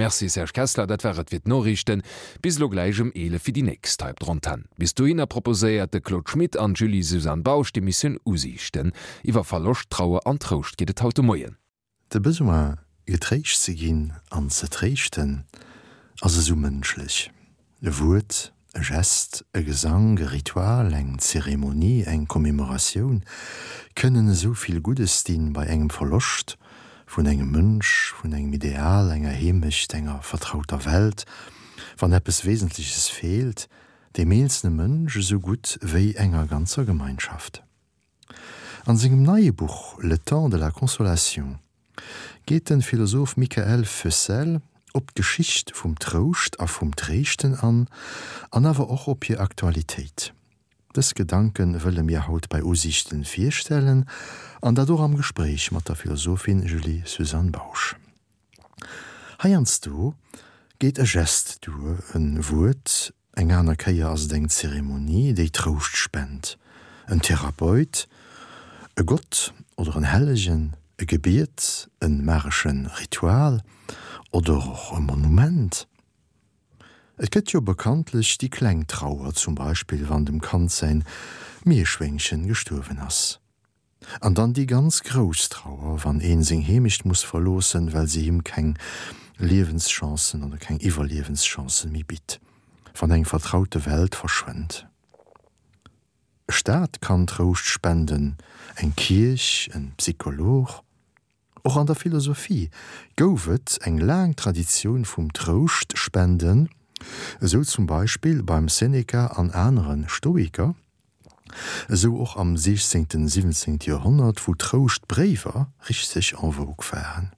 Merci Serge Kessler, dat war et fir d'Noriichten. Bis elo gläich um 11 fir déi nächst hei op der Antenn. Bis dohinner proposéiert de Claude Schmit an d'Julie-Suzanne Bausch d'Emissioun Usiichten. Iwwer Verloscht, Trauer an Trouscht geet et haut de Moien. De Besoin, getréischt ze ginn an ze tréischten, ass esou mënschlech. E Wuert, e Gest, e Gesank, e Ritual, eng Zeremonie, eng Commemoratioun kënnen esou vill Guddes dinn bei engem Verloscht vun engem Mënsch, vun engem Ideal, enger Heemecht, enger vertrauter Welt, wann eppes Wesentleches feelt, dem eenzelne Mënsch esou gutt wéi enger ganzer Gemeinschaft. An sengem neie Buch Le temps de la consolation geet de Philosoph Michael Foessel op d'Geschicht vum Trouscht a vum Tréischten an, an awer och op hir Aktualitéit. Dës Gedanke wëlle mir haut bei Usiichten virstellen, an dat och am Gespréich mat der Philosophin Julie-Suzanne Bausch. Heiansdo geet e Gest duer, e Wuert, eng aner Kéier ass et eng Zeremonie, déi Trouscht spent, en Therapeut, e Gott oder en Hellegen, e Gebiet, e magesche Ritual oder och e Monument. Et gëtt jo bekanntlech déi kleng Trauer, zum Beispill wann dem Kand säin Mierschwéngchen gestuerwen ass. An dann déi ganz grouss Trauer, wann een seng Heemecht muss verloossen, well se him keng Liewenschancen oder keng Iwwerliewenschancen méi bitt, wann eng vertraute Welt verschwënnt. E Staat kann Trouscht spenden, eng Kierch, en Psycholog. Och an der Philosophie gouf et eng laang Traditioun vum Trouscht spenden, esou zum Beispill beim Seneca an anere Stoiker, esou och am 16., 17. Joerhonnert, wou Trouschtbréiwer richteg en vogue waren.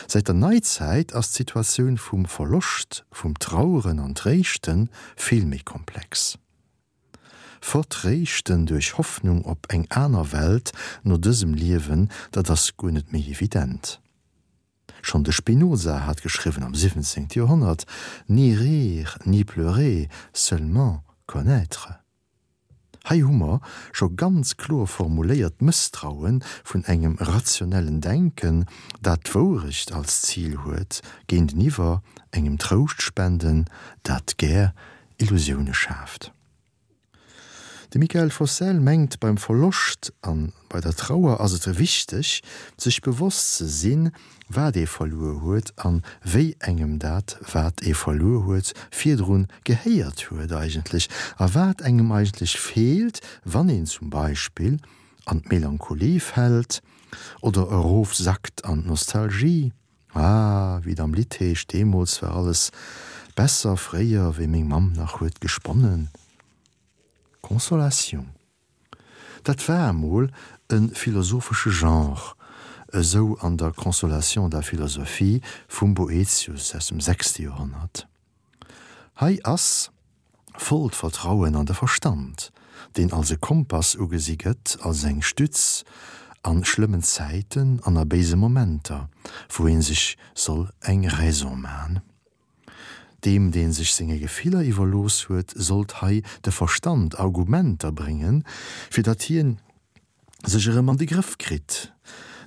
Säit der Neizäit ass d'Situatioun vum Verloscht, vum Traueren an Tréischte vill méi komplex. Vertréischten duerch Hoffnung op eng aner Welt no dësem Liewen, dat ass guer net méi evident. Schonn de Spinoza hat geschriwwen am 17. Joerhonnert, Ni rire, ni pleurer, seulement connaître. Hei hu mer scho ganz kloer formuléiert d'Mësstraue vun engem rationellen Denken, dat d'Wourecht als Zil huet, géinteniwwer engem Trouschtspenden, dat gär Illusioune schaaft. De Michael Fossel mengt, beim Verloscht a bei der Trauer ass et wichteg, sech bewosst ze sinn, wat ee verluer huet a wéi engem dat, wat ee verluer huet, virdrun gehéiert huet eigentlech a wat engem eigentlech feelt, wann een zum Beispill an d'Melancholie fält oder erofsackt an d'Nostalgie. Ah, wéi et am Lidd heescht, deemools war alles besser, fréier, wéi meng Mamm nach huet gesponnen. Consolation, dat war emol e philosophesche Genre, esou an der Consolation de la philosophie vum Boethius aus dem sechste Joerhonnert. Hei ass vollt Vertrauen an de Verstand, deen als e Kompass ugesi gëtt, als eng Stütz a schlëmmen Zäiten an a béise Momenter, wou ee sech soll eng Raison man. Deem, dee sech senge Gefiller iwwerlooss huet, sollt hei de Verstand Argumenter bréngen, fir datt hien sech erëm an de Grëff kritt,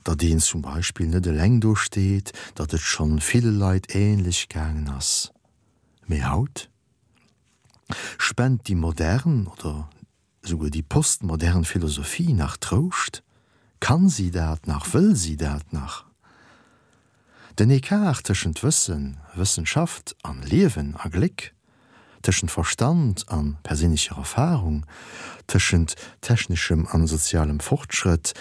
datt een zum Beispill net eleng do steet, datt et schonn ville Leit ähnlech gaangen ass. Mee haut spent déi modern oder esouguer déi postmodern Philosophie nach Trouscht? Kann si dat nach? Wëll si dat nach? Den Ecart tëschent Wëssen, Wëssenschaft an Liewen a Gléck, tëschent Verstand an perséinlecher Erfahrung, tëschent techneschem an sozialem Fortschrëtt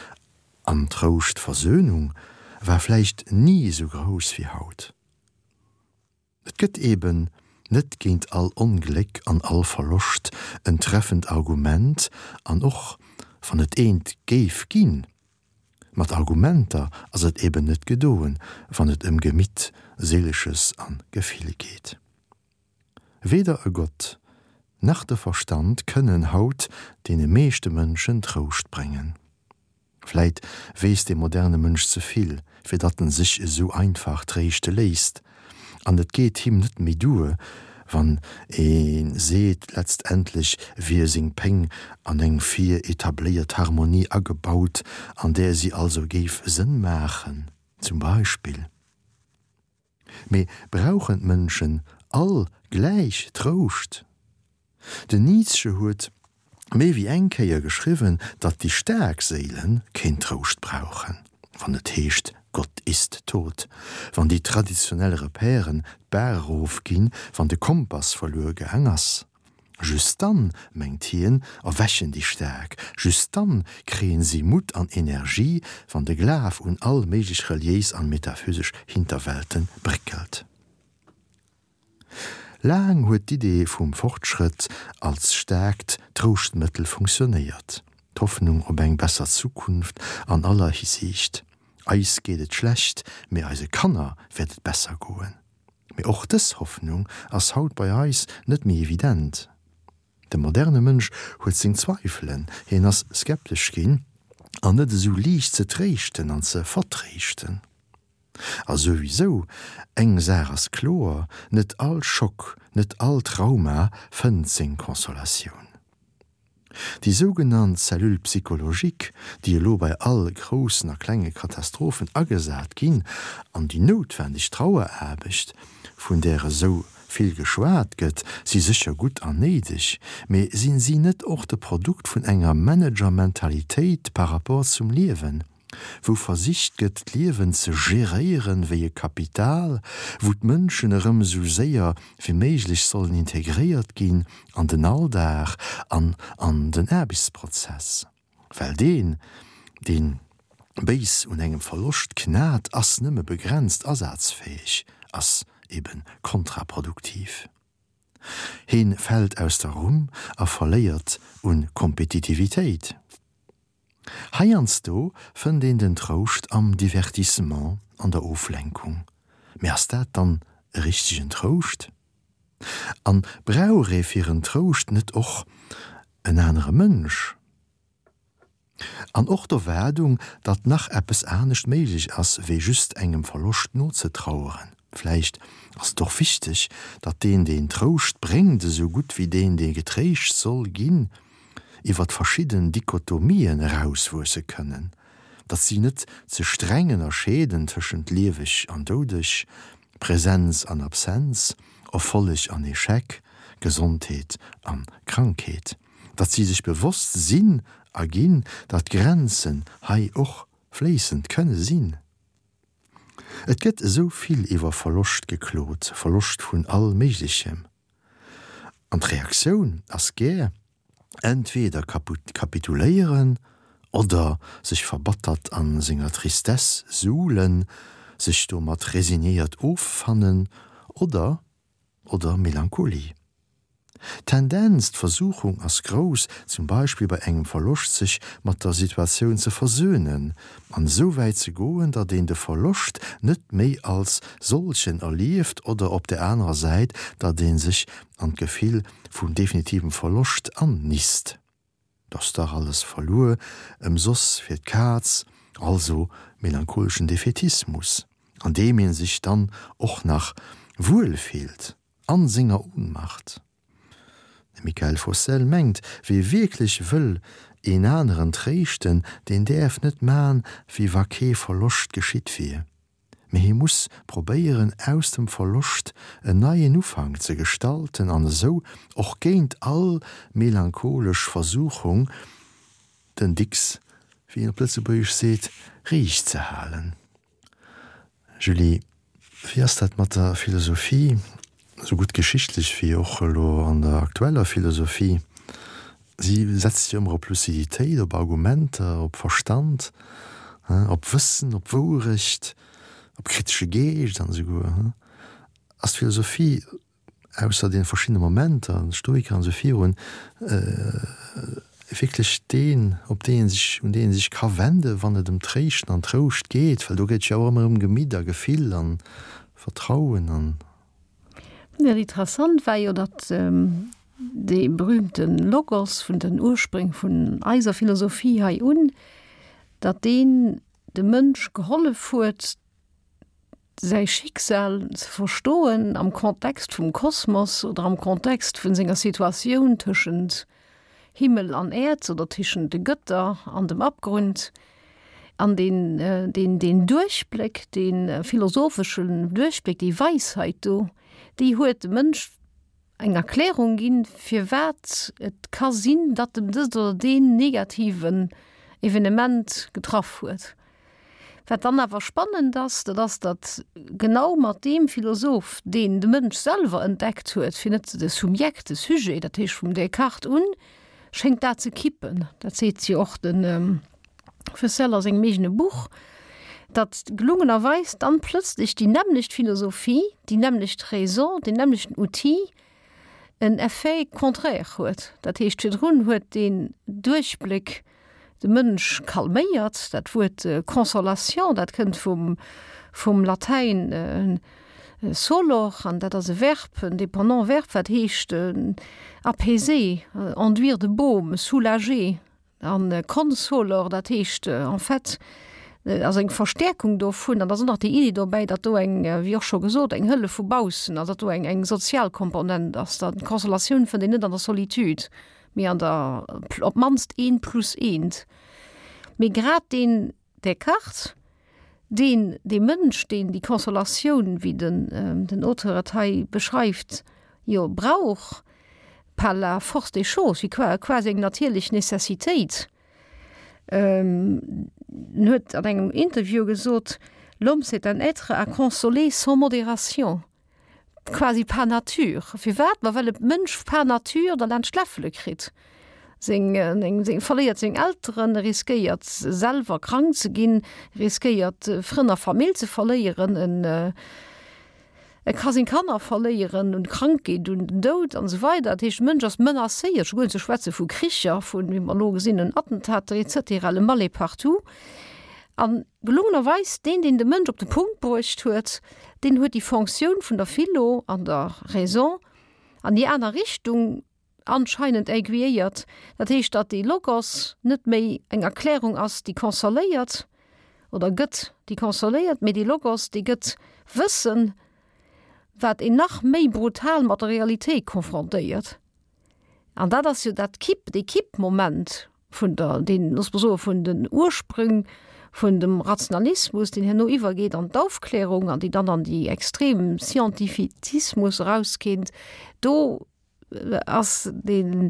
an Trouscht, Versöhnung, war vläicht ni esou grouss wéi haut. Et gëtt eben net géint all Ongléck an all Verloscht en treffend Argument, an och wann et eent géif ginn, mat Argumenter ass et eben net gedoen, wann et ëm Gemitt, Seelesches an Gefill geet. Weder e Gott nach de Verstand kënnen haut deene meeschte Mënschen Trouscht bréngen. Vläit weess de moderne Mënsch ze vill, fir datt en sech esou einfach tréischte léisst. An et geet him net méi duer, wann ee seet, letztendlech wier seng Péng an eng vir etabléiert Harmonie agebaut, an där si also géif Sënn maachen, zum Beispill. Mee brauchen d'Mënschen all gläich Trouscht? Den Nietzsche huet méi wéi eng Kéier geschriwwen, datt déi staark Séile keen Trouscht brauchen, wann et heescht Gott ist tot, wann déi traditionell Repèren d'Baach erofginn, wann de Kompass verluer gaang ass. Just dann, mengt hien, erwächen déi Staark, just dann kréien si Mutt an Energie, wann de Glaf un all méiglech reliéis an metaphysesch Hinterwelten bréckelt. Laang huet d'Idee vum Fortschrëtt als staarkt Trouschtmëttel funktionéiert, d'Hoffnung op eng besser Zukunft an aller Hisiicht. Eis geet et schlecht, mee eise Kanner wäert et besser goen. Mee och dës Hoffnung ass haut bei eis net méi evident. De moderne Mënsch huet seng Zweifelen, hien ass skeptesch ginn an net esou liicht ze tréischten an ze vertréischten. A souwisou, eng Saach ass kloer, net all Schock, net all Trauma fënnt seng Consolatioun. Déi sougenannt Cellule psychologique, déi elo bei all groussen a klenge Katastrophen agesat ginn, an déi noutwendeg Traueraarbecht, vun där esou vill geschwat gëtt, si sécher gutt an néideg, mee sinn si net och de Produkt vun enger Managermentalitéit par rapport zum Liewen? wou versicht gëtt d'Liewen ze geréieren wéi e Kapital, wou d'Mënschen erëm esou séier wéi méiglech sollen integréiert ginn an den Alldag an an den Aarbechtsprozess. Well deen, deen béis un engem Verloscht knat, ass nëmme begrenzt asazfäeg, ass ebe kontraproduktiv. Heen fält aus der Rumm a verléiert un Kompetitivitéit. Heiansdo fënnt een den Trouscht am Divertissement, an der Oflenkung. Mee ass dat dann e richtegen Trouscht? An brauch ee fir en Trouscht net och en anere Mënsch? An och d'Erwaardung, datt nach eppes anescht méiglech ass, wéi just engem Verloscht nozetraueren. Vläicht ass et och wichteg, datt deen, deen Trouscht bréngt, esou gutt wéi deen, dee getréischt soll ginn, iwwer verschidden Dichotomien erauswuesse kënnen, datt si net ze streng ënnerscheeden tëschent lieweg an doudeg, Präsenz an Absenz, Erfolleg an Echec, Gesondheet an Krankheet, datt si sech bewosst sinn a ginn, datt Grenzen hei och fléissend kënne sinn. Et gëtt esou vill iwwer Verloscht geklot, Verloscht vun all Méiglechem. An d'Reaktioun ass gär, entweder kapituléieren oder sech verbattert a senger Tristesse suhlen, sech domat resignéiert offannen oder oder Melancholie. D'Tendenz, d'Versuchung ass grouss, zum Beispill bei engem Verloscht sech mat der Situatioun ze versöhnen an esou wäit ze goen, datt een de Verloscht net méi als solchen erlieft oder op der anerer Säit, datt ee sech an d'Gefill vum definitivem Verloscht annisst. 't ass dach alles verluer, ëmsoss fir d'Kaz, also melancholeschen Defätismus, an deem ee sech dann och nach wuel fillt an senger Ohnmacht. De Mickaël Fossel mengt, wie wierklech wëll een aneren tréischten, deen däerf net man, wéi wa kee Verloscht geschitt wier, mee hie muss probéieren, aus dem Verloscht en neien Ufank ze gestalten an esou och géint all melancholesch Versuchung den Dicks, wéi een op Lëtzebuergesch seet, riicht ze halen. Julie, wéi ass dat mat der Philosophie, esou gutt geschichtlech wéi och elo an der aktueller Philosophie? Si setzt jo ëmmer op Luciditéit, op Argumenter, op Verstand, op Wëssen, op Wourecht, op kritesche Geescht an esouguer. Ass d'Philosophie ausser deene verschiddene Momenter, de Stoiker an esou virun, wierklech deen, op dee ee sech, un deen ee sech ka wenden, wann et ëm Tréischten an Trouscht geet, well do geet et jo och ëmmer ëm Gemitt a Gefill a Vertrauen an. Jo, interessant war jo, datt dee berühmte Logos vun den Urspréng vun eiser Philosophie hei un, datt deen dem Mënsch gehollef huet, säi Schicksal ze verstoen am Kontext vum Kosmos oder am Kontext vun senger Situatioun tëschent Himmel an Äerd oder tëschent de Gëtter an dem Abgrund. An deen, deen, deen Duerchbléck, dee philosopheschen Duerchbléck, déi Weisheit do, déi huet dem Mënsch eng Erklärung ginn, firwat et ka sinn, datt em dëst oder deen negativen Evenement getraff huet. Wat dann awer spannend ass, dat ass, datt genau mat deem Philosoph, deen de Mënsch selwer entdeckt huet, fir net de Subjekt, de Sujet, dat heescht vum Descartes un, schéngt dat ze kippen. Dat seet jo och de Fessel a sengem eegene Buch, datt gelungenerweis dann plëtzlech déi nämmlecht Philosophie, déi nämmlecht Raison, deen nämmlechten Outil en Effet contraire huet. Dat heescht, virdrun huet deen Duerchbléck de Mënsch calméiert. Dat Wuert consolation, dat kënnt vum, vum Latäin solor an dat ass e Verb, en dépendant Verb, wat heescht apaiser, enduire de baume, soulager. An consolor, dat heescht en fait, ass eng Verstäerkung dovun. An da ass och nach déi Iddi dobäi, datt do eng, wéi och scho gesot, eng Hëllef vu baussen ass, datt do eng, eng sozial Komponent ass, datt d'Consolatioun fënnt een net an der Solitude, mee an der, op d'mannst eent plus eent. Mee grad deen Descartes, deen, dee Mënsch, deen déi Consolatioun, wéi den, den Auteur et hei beschreift, jo brauch, par la force des choses, wéi quasi eng natierlech Necessitéit. En huet an engem Interview gesot, L'homme c'est un être à consoler sans modération. Quasi par nature. Firwat? Ma well e Mënsch par nature der laanscht d'Läffele kritt. Seng, seng, verléiert seng Elteren, e riskéiert selwer krank ze ginn, riskéiert Frënn a Famill ze verléieren, en, e ka seng Kanner verléieren un Krankheet, un den Doud an esou weider. Dat heescht, de Mënsch ass menacéiert, scho guer net ze schwätze vu Kricher, vun, wéi mer elo gesinn hunn, Attentater et cetera, le mal est partout. An gelungenerweis, deen, deen de Mënsch op de Punkt bruecht huet, deen huet déi Fonctioun vun der Philo an der Raison an déi aner Richtung anscheinend aiguilléiert. Dat heescht, datt dee Logos net méi eng Erklärung ass, déi consoléiert oder gëtt, déi consoléiert, mee dee Logos, dee gëtt Wëssen, wat een nach méi brutal mat der Realitéit confrontéiert. An dat ass jo dat Kipp, dee Kippmoment vun der, deen, looss mer soen, vun den Ursprünng vun dem Rationalismus, deen herno iwwergeet an d'Aufklärung an déi dann an déi extrem Scientifizismus erauskéint, do ass deen,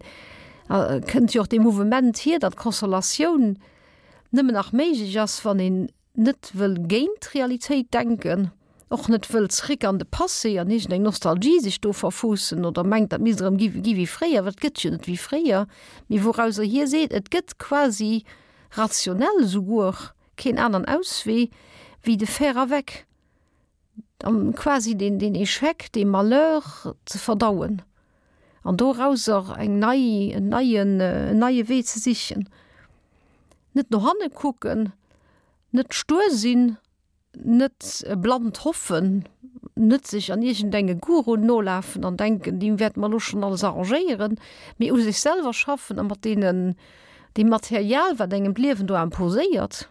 kënnt jo och dee Mouvement hier, datt d'Consolatioun nëmmen nach méiglech ass, wann een net wëll géint d'Realitéit denken, och net wëll zréck an de Passé an iergendeng Nostalgie sech do verfuussen oder mengt, dat misst erëm gi gi wéi fréier, well et gëtt jo net wéi fréier, mee wourauser hie seet, et gëtt quasi rationell esouguer keen aneren Auswee wéi de faire avec, an quasi deen deen Échec, dee Malheur ze verdauen an dorauser eng nei, en neien, en neie Wee ze sichen. Net no hanne kucken, net stuer sinn, net blannt hoffen, net sech an iergendenge Guruen nolafen an denken, déi wäerte mer elo schonn alles arrangéieren, mee u sech selwer schaffen a mat deenen, deem Material, wat engem d'Liewen do imposéiert,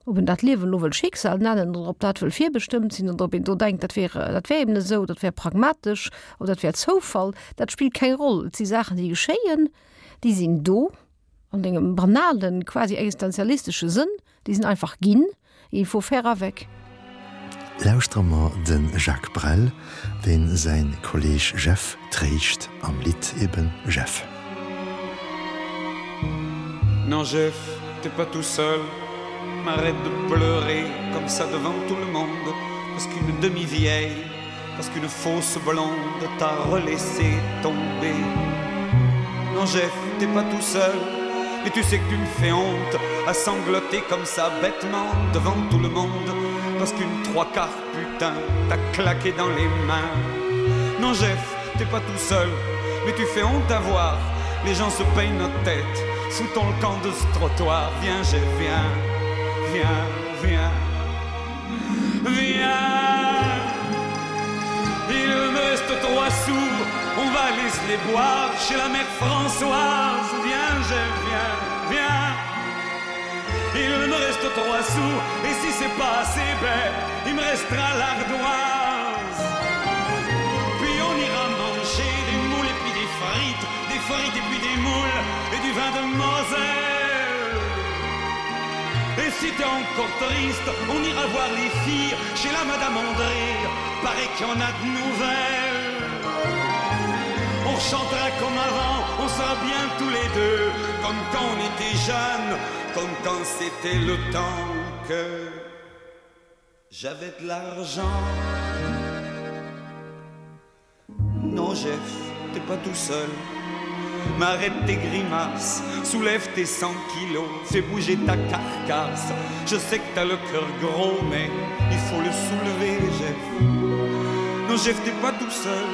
ob een dat Liewen elo wëll Schicksal nennen oder ob dat wëll virbestëmmt sinn oder ob een do denkt, dat wär, dat wär eben esou, dat wär pragmatesch oder dat wär Zoufall, dat spillt keng Roll. Et si Saachen, déi geschéien, déi sinn do. An engem banalen, quasi existenzialistesche Sënn, déi sinn einfach ginn, il faut faire avec. Lauschtere mer de Jacques Brel, deen säin Kolleeg Jeff tréischt am Lidd eben Jeff. Non Jeff, t'es pas tout seul, m'arrête de pleurer comme ça devant tout le monde, parce qu'une demi-vieille, parce qu'une fausse blonde t'a relaissé tomber. Non Jeff, t'es pas tout seul, et tu sais que tu me fais honte à sangloter comme ça bêtement devant tout le monde, parce qu'une trois-quarts putain t'a claqué dans les mains. Non Jeff, t'es pas tout seul, mais tu fais honte à voir, les gens se peignent notre tête, foutons le camp de ce trottoir, viens Jeff, viens, viens, viens. Viens Il me reste trois sous On va aller se les boire Chez la mère Françoise Viens, je viens, viens Il me reste trois sous Et si c'est pas assez bête Il me restera l'ardoise Puis on ira manger Des moules et puis des frites Des frites et puis des moules Et du vin de Moselle. si t'es encore triste, on ira voir les filles chez la Madame André, paraît qu'il y en a de nouvelles. On chantera comme avant, on sera bien tous les deux, comme quand on était jeune, comme quand c'était le temps que j'avais de l'argent. Non Jeff, t'es pas tout seul. M'arrête tes grimaces, soulève tes 100 kilos, fais bouger ta carcasse. Je sais que t'as le cœur gros, mais il faut le soulever, Jeff. Non Jeff, t'es pas tout seul.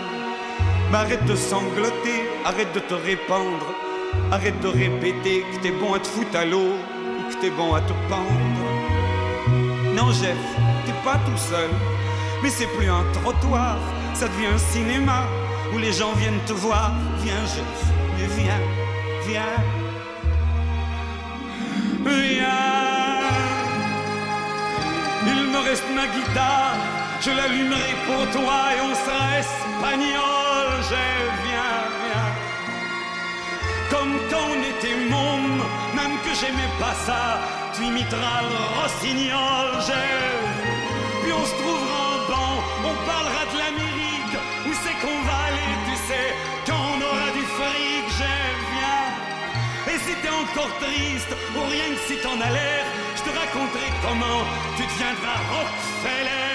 M'arrête de sangloter, arrête de te répandre, arrête de répéter que t'es bon à te foutre à l'eau ou que t'es bon à te pendre. Non Jeff, t'es pas tout seul, mais c'est plus un trottoir, ça devient un cinéma où les gens viennent te voir. Viens Jeff, mais viens, viens. Viens. Il me reste ma guitare, je l'allumerai pour toi et on sera espagnol. Jeff, viens, viens. Comme quand on était môme, même que j'aimais pas ça, tu imiteras le rossignol, Jeff. Puis on se trouvera en banc, on parlera de l'Amérique, où c'est qu'on va aller, tu sais, quand on aura du fric, Jeff, viens. Et si t'es encore triste, ou rien que si t'en as l'air, je te raconterai comment tu deviendras Rockefeller.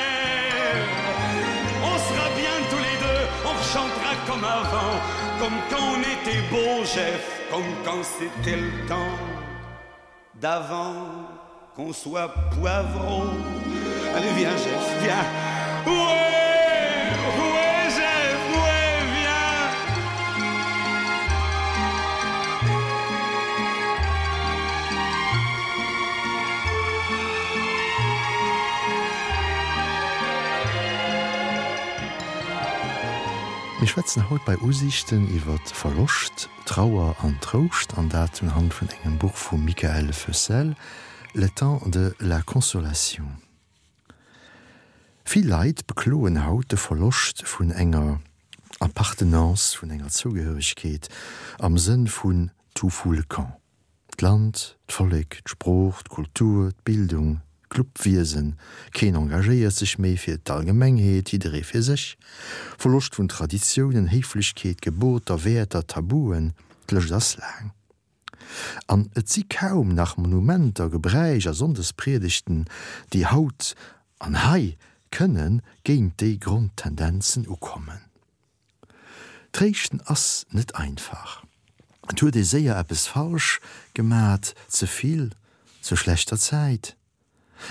On sera bien tous les deux, on chantera comme avant, comme quand on était beau, Jeff, comme quand c'était le temps d'avant qu'on soit poivreau. Allez, viens, Jeff, viens. Ouais, ouais, Jeff, ouais, viens. Mir schwätzen haut bei Usiichten iwwer Verloscht, Trauer an Trouscht, an dat unhand vun engem Buch vum Mickaël Feussel, Le temps de la consolation. Vill Leit bekloen haut de Verloscht vun enger Appartenance, vun enger Zougehöregkeet am Sënn vun tout fout le camp. D'Land, d'Vollek, d'Sprooch, d'Kultur, d'Bildung, d'Clubwiesen, keen engagéiert sech méi fir d'Allgemengheet, jidderee fir sech. Verloscht vun Traditiounen, Héiflechkeet, Geboter, Wäerter, Tabuen, d'Lëscht ass laang. An et si kaum nach Monumenter, Gebräich a Sonndespriedegten, déi haut an hei kënne géint déi Grondtendenzen ukommen. Tréischten ass net einfach. Et huet ee séier eppes falsch gemat, ze vill, zur schlechter Zäit.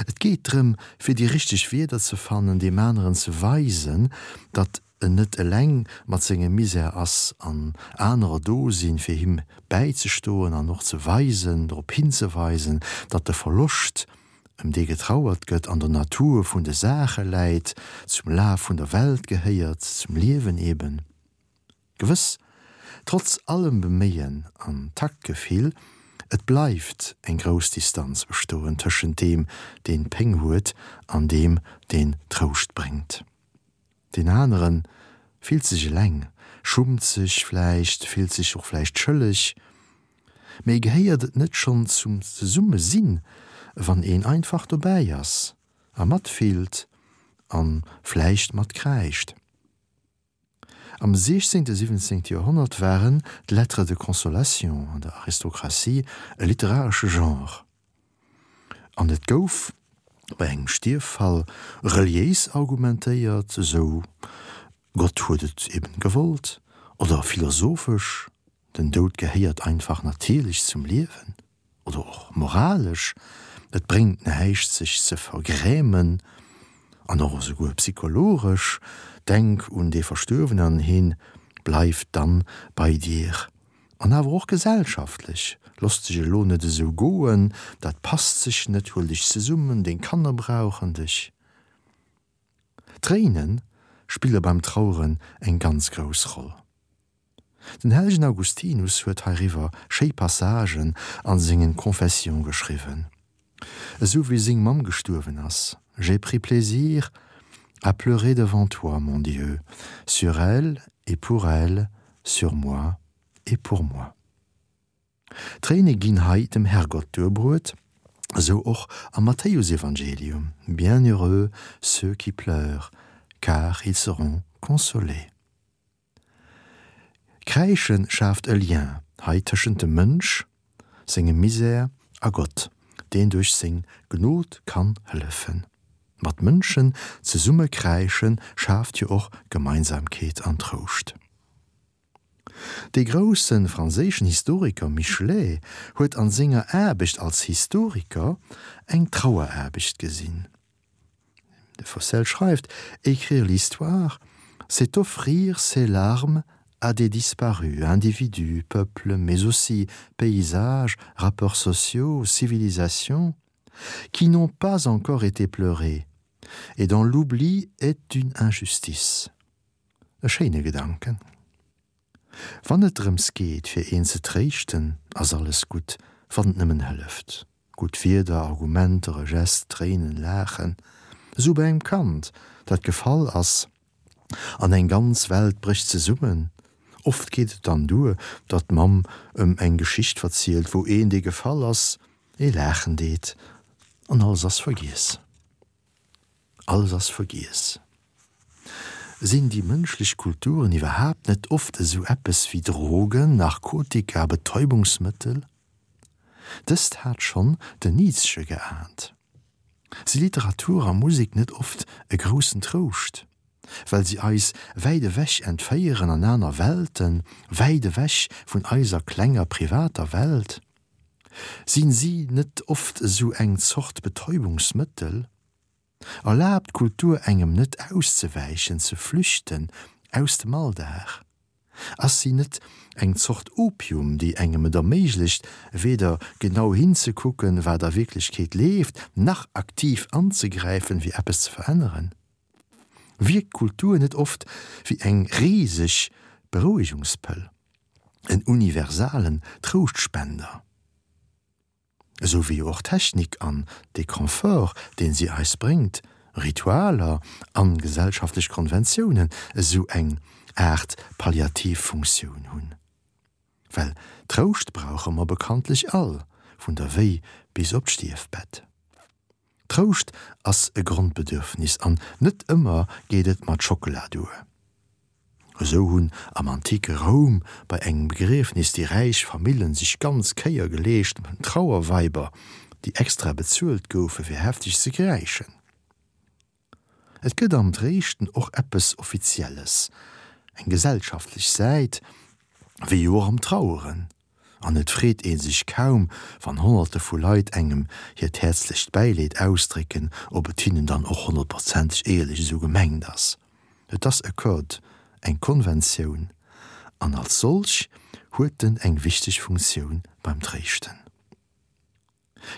Et geet drëm, fir déi richteg Wierder ze fannen, deem aneren ze weisen, datt en net eleng mat sengem Misär ass an anerer do sinn, fir him bäizestoen an och ze weisen, drop hinzeweisen, datt de Verloscht, ëm dee getrauert gëtt, an der Natur vun de Saache läit, zum Laf vun der Welt gehéiert, zum Liewen eben. Gewëss, trotz allem Beméien an Taktgefill, et bleift eng grouss Distanz bestoen tëschent deem, deen Péng huet, an deem, deen Trouscht bréngt. Deen anere fillt sech eleng, schummt sech vläicht, fillt sech och vläicht schëlleg. Mee gehéiert et net schonn zum Zesummesinn, wann een einfach dobäi ass a matfillt a vläicht matkräischt? Am 16., 17. Joerhonnert waren d'Lettres de consolation an der Aristokratie e literaresche Genre. An et gouf bei engem Stierffall reliéis argumentéiert, esou Gott huet et eben gewollt, oder philosophesch, den Doud gehéiert einfach natierlech zum Liewen, oder och moralesch, et bréngt näischt sech ze vergrämen, an och esouguer psychologesch, denk un dee Verstuerwenen an heen bleift dann bei dir. An awer och gesellschaftlech, Loss dech elo net esou goen, dat passt sech net, huel dech zesummen, deng Kanner brauchen dech. Tréine spille beim Traueren eng ganz grouss Roll. Den hellegen Augustinus huet heiriwwer schéi Passagen a sengen Confessions geschriwwen. Esou wéi seng Mamm gestuerwen ass, J'ai pris plaisir à pleurer devant toi, mon Dieu, sur elle et pour elle, sur moi et pour moi. D'Tréine ginn hei dem Herrgott duerbruet. Esou och am Matthäusevangelium, Bienheureux ceux qui pleurent, car ils seront consolés. Kräische schaaft e Lien hei tëschent dem Mënsch, sengem Misär a Gott, deen duerch seng Gnod kann hëllefen. Mat Mënschen zesumme kräische schaaft jo och Gemeinsamkeet an Trouscht. Dee grousse franséischen Historiker Michelet huet an senger Aarbecht als Historiker eng Traueraarbecht gesinn. De Faucel schreift, Écrire l'histoire, c'est offrir ses larmes à des disparus, individus, peuples, mais aussi paysages, rapports sociaux, civilisations, qui n'ont pas encore été pleurés, et dont l'oubli est une injustice. E schéine Gedanken. Wann et drëms geet, fir een ze tréischten, ass alles gutt, wann et nëmmen hëlleft. Gutt Wierder, Argumenter, e Gest, Tréinen, Laachen. Esou bei engem Kand, dat gefall ass, an eng ganz Welt brécht zesummen. Oft geet et dann duer, datt d'Mamm ëm eng Geschicht verzielt, wou een, dee gefall ass, ee laachen deet, an alles ass vergiess. Alles ass vergiess. Sinn déi mënschlech Kulturen iwwerhaapt net oft esou eppes wéi Drogen, Narkotika, Betäubungsmëttel? Dëst hat schonn den Nietzsche geahnt. Si Literatur a Musek net oft e groussen Trouscht, well si eis wäit ewech entféieren an aner Welten, wäit ewech vun eiser klenger privater Welt? Sinn si net oft esou eng Zort Betäubungsmëttel? Erlaabt d'Kultur engem net auszewäichen, ze flüchten aus dem Alldag? Ass si net eng Zort Opium, déi engem et erméiglecht, weder genau hinzekucken, wat a Wierklechkeet leeft, nach aktiv anzegräifen, fir eppes ze veränneren? Wierkt d'Kultur net oft wéi eng riseg Berouegungspëll, en universalen Trouschtspender? Esou wéi jo och d'Technik an de Confort, deen si eis bréngt, Ritualer an gesellschaftlech Konventiounen esou eng Aart palliativ Funktioun hunn. Well Trouscht brauche mer bekanntlech all, vun der Wéi bis op d'Stierfbett. Trouscht ass e Grondbedürfnis an net ëmmer geet et mat Schockela duer. Esou hunn am antike Roum bei engem Begriefnis déi räich Famillen sech ganz Kéier geleescht mat Trauerweiber, déi extra bezuelt goufe fir hefteg ze kräischen. Et gëtt am Tréischten och eppes Offizielles, eng gesellschaftlech Säit, wéi jo och am Traueren. An et freet ee sech kaum, wann Honnerte vu Leit engem hiert häerzlecht Bäileed ausdrécken, ob et hinnen dann och honnertprozenteg éierlech esou gemengt ass. Et ass e Code, eng Konventioun, an als solch huet en eng wichteg Funktioun beim Tréischten.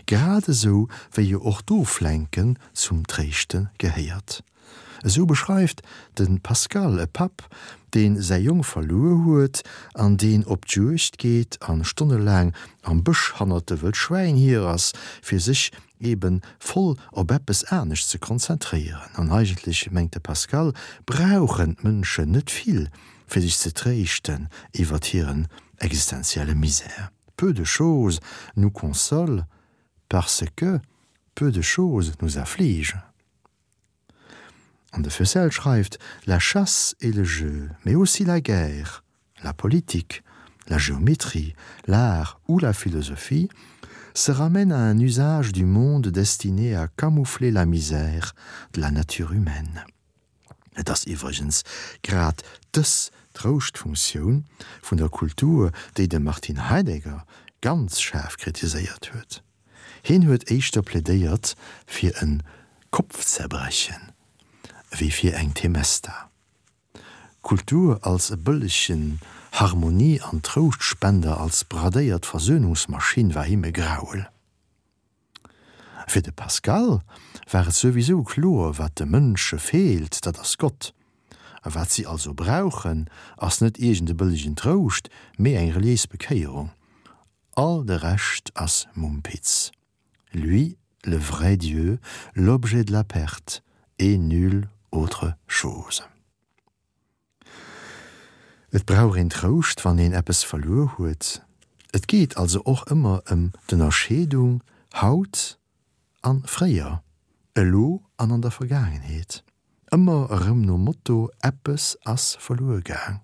Grad esou wéi jo och d'Oflenken zum Tréischte gehéiert. Esou beschreift de Pascal e Papp, dee säi Jong verluer huet an deen op d'Juegd geet a stonnelaang am Bësch hannert de wëll Schwäin hier ass, fir sech eben voll op eppes anescht ze konzentréieren. An eigentlech, mengt de Pascal, brauchen d'Mënschen net vill, fir sech ze tréischten iwwert hiren existenzielle Misär. Peu de choses nous consolent parce que peu de choses nous affligent. An de Fusel schreift, La chasse et le jeu, mais aussi la guerre, la politique, la géométrie, l'art ou la philosophie se ramènent à un usage du monde destiné à camoufler la misère de la nature humaine. Et ass iwwregens grad dës Trouschtfunktioun vun der Kultur, déi de Martin Heidegger ganz schaarf kritiséiert huet. Hien huet éischter plädéiert fir e Kopfzerbrechen ewéi fir eng Temesta. Kultur als e bëllegen Harmonie an Trouschtspender, als bradéiert Versöhnungsmaschinn war him e Grauel. Fir de Pascal war et souwisou kloer, wat de Mënsche feelt, dat ass Gott. A wat si also brauchen, ass net iergend e bëllegen Trouscht, mee eng reliéis Bekéierung. All de Rescht ass Mumpitz. Lui, le vrai Dieu, l'objet de la perte, et nulle autre chose. Et brauch een Trouscht, wann een eppes verluer huet. Et geet also och ëmmer ëm d'Ënnerscheedung haut. an fréier, elo an an der Vergaangenheet. Ëmmer erëm nom Motto, Eppes ass verluer gaang.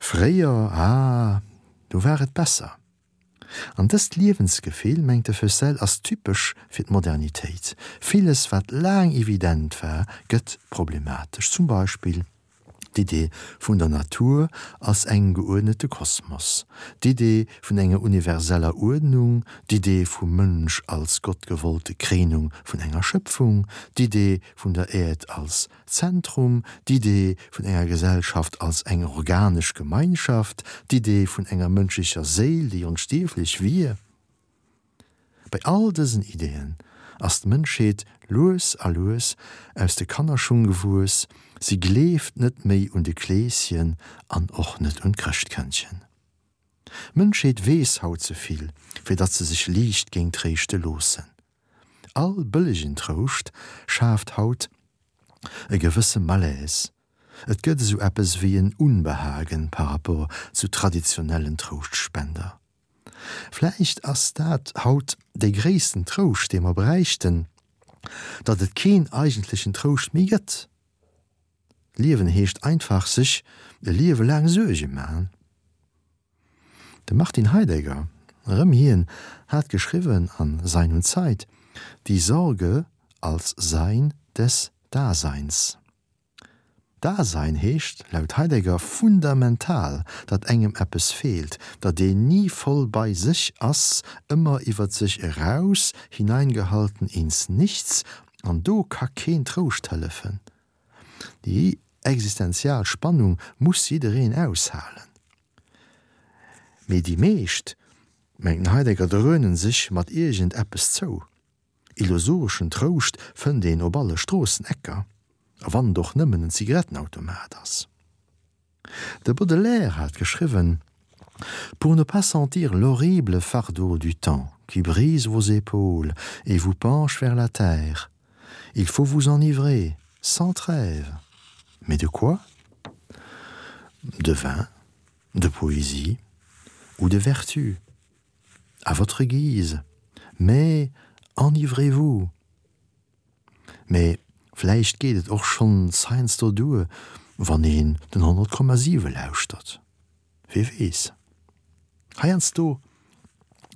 Fréier, ah, do war et besser. An dëst Liewensgefill, mengt de Feussel, ass typesch fir d'Modernitéit. Villes, wat laang evident war, gëtt problematesch. Zum Beispill d'Idee vun der Natur als engem geuerdnete Kosmos, d'Idee vun enger universeller Uerdnung, d'Idee vum Mënsch als gottgewollte Kréinung vun enger Schëpfung, d'Idee vun der Äerd als Zentrum, d'Idee vun enger Gesellschaft als eng organesch Gemeinschaft, d'Idee vun enger mënschlecher Séil, déi onstierflech wier. Bei all dësen Ideeën ass d'Mënschheet lues a lues aus de Kannerschung gewuess, si gleeft net méi un de Kleeschen an och net un d'Chrëschtkëndchen. D'Mënschheet weess haut ze vill, fir datt se sech liicht géing tréischte loossen. All bëllegen Trouscht schaaft haut e gewësse Malaise. Et gëtt esou eppes wéi en Unbehagen par rapport zu traditionellen Trouschtspender. Vläicht ass dat haut dee gréissten Trouscht, dee mer bräichten, datt et keen eigentlechen Trouscht méi gëtt. Liewen heescht einfach sech e Liewe laang Suerge man. De Martin Heidegger, erëm hien, hat geschriwwen an Sein und Zeit, Die Sorge als Sein des Daseins. Dasein heescht laut Heidegger fundamental, datt engem eppes feelt, datt een ni voll bei sech ass, ëmmer iwwer sech eraus, hineingehalten ins Nichts, an do ka keen Trouscht hëllefen. Déi existenzial Spannung muss jiddereen aushalen. Mee déi meescht, mengt den Heidegger, dröhnen sech mat iergend eppes zou. Illusoreschen Trouscht fënnt een op alle Stroossenecker, a wann et och nëmmen en Zigarettenautomat ass. De Baudelaire hat geschriwwen, Pour ne pas sentir l'horrible fardeau du temps qui brise vos épaules et vous penche vers la terre, il faut vous enivrer, sans trêve. Mais de quoi? De vin, de poésie ou de vertu, à votre guise, mais enivrez-vous! Mee vläicht geet et och schonns heiansdo duer, wann een den 100,7 lauschtert. Wie weess? Heiansdo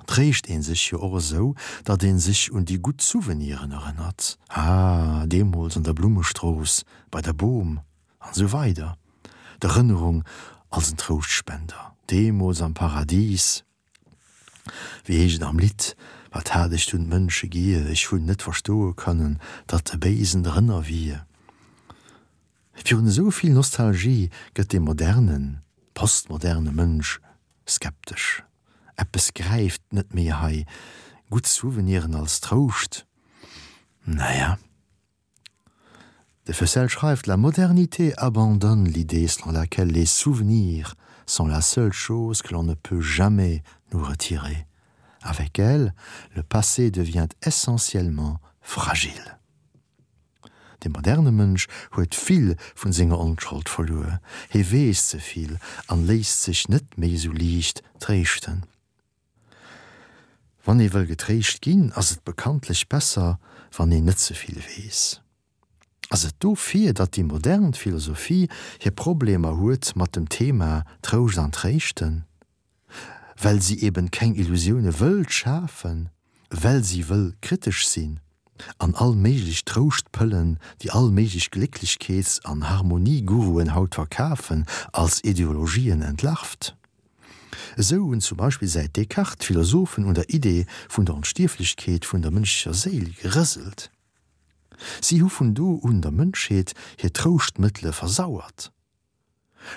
tréischt ee sech jo och esou, datt ee sech un déi gutt Souveniren erënnert, Ah, deemools an der Blummestrooss, bei der Boom, an esou weider D'Erënnerung als en Trouschtspender, deemools am Paradis, Wéi heescht et am Lidd, Wat hat ech dunn d'Mënsche gier, ech hunn net verstoe kënnen, datt e Béisen drënner wier. Virun esou vill Nostalgie gëtt de modernen, postmoderne Mënsch skeptesch. Eppes gräift net méi hei, gutt Souveniren als Trouscht, naja. De Fessel schreift: La modernité abandonne l'idée selon laquelle les souvenirs sont la seule chose que l'on ne peut jamais nous retirer. Avec elle, le passé devient essentiellement fragile. De moderne Mënsch huet vill vun senger Onschold verluer, hie weess ze vill an léisst sech net méi esou liicht tréischten. Wann ee wëll getréischt ginn, ass et bekanntlech besser, wann een net ze vill weess. Ass et dofir, datt déi modern Philosophie hir Problemer huet mat dem Thema Trouscht an Tréischten? Well si eben keng Illusioune wëllt schafen, well si wëll kritesch sinn an all méiglech Trouschtpëllen, déi all méiglech Glécklechkeets an Harmonieguruen haut verkafen, als Ideologien entlarvt? Esou hunn zum Beispill säit Descartes d'Philosophen un der Idee vun der Onstierflechkeet vun der mënschlecher Séil gerëselt. Si hu vun do un der Mënschheet hir Trouschtmëttele versauert.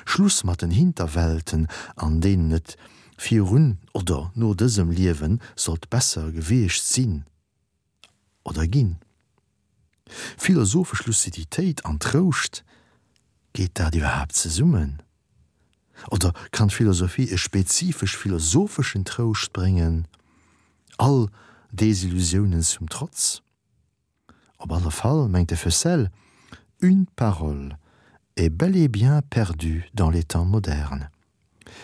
Schluss mat den Hinterwelten, an deenen et virun oder no dësem Liewe sollt besser gewiescht sinn oder ginn. Philosophesch Luciditéit an Trouscht, geet dat iwwerhaapt zesummen? Oder kann d'Philosophie e spezifesch philosopheschen Trouscht bréngen, all Desillusiounen zum Trotz? Op alle Fall mengt de Feussel, Une parole est bel et bien perdue dans les temps modernes.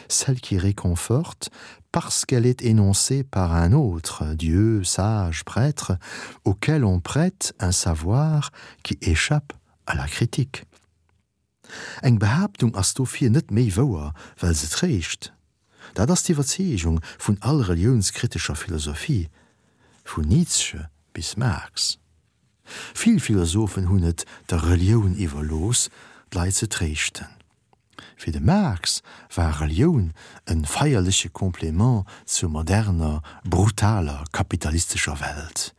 Celle qui réconforte parce qu'elle est énoncée par un autre, Dieu, sage, prêtre, auquel on prête un savoir qui échappe à la critique. Eng Behaaptung ass dofir net méi wouer, well se tréischt. Dat ass d'Iwwerzeegung vun all reliounskritescher Philosophie, vun Nietzsche bis Marx. Vill Philosophen hunn et der Relioun iwwerlooss, d'Leit ze tréischten. Fir de Marx war Relioun e feierleche Complément zur moderner, brutaler kapitalistescher Welt,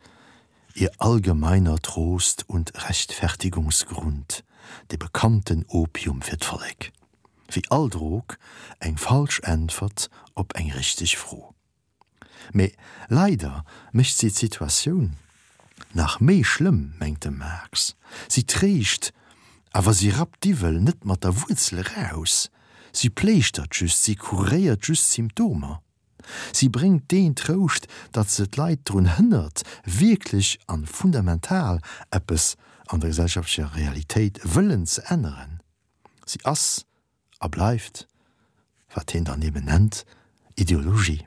ihr allgemeiner Trost und Rechtfertigungsgrund, de bekannten Opium fir d'Vollek. Wéi all Drog, eng falsch Äntwert op eng richteg Fro. Mee leider mécht si d'Situatioun nach méi schlëmm, mengt de Marx. Si tréischt, awer si rappt d'Iwwel net mat der Wuerzel eraus. Si pléischtert just, si kuréiert just d'Symptomer. Si bréngt deen Trouscht, datt se d'Leit drun hënnert, wierklech an fundamental eppes an der gesellschaftlecher Realitéit wëllen ze änneren. Si ass a bleift, wat hien dann eben nennt, Ideologie.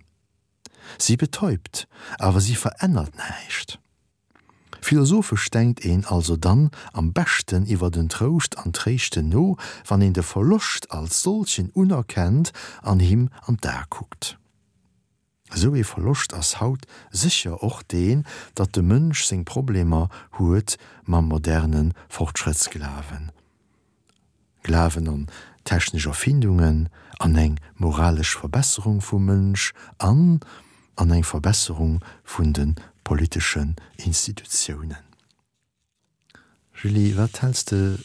Si betäubt, awer si verännert näischt. Philosophesch denkt een also dann am beschten iwwer den Trouscht an Tréischten no, wann een de Verloscht als solchen unerkennt an him an d'Ae kuckt. Esou ee Verloscht ass haut sécher och deen, datt de Mënsch seng Problemer huet mam moderne Fortschrëttsglawen, Glawen an technesch Erfindungen, an eng moralesch Verbesserung vum Mënsch an an eng Verbesserung vun de politeschen Institutiounen. Julie, wat häls de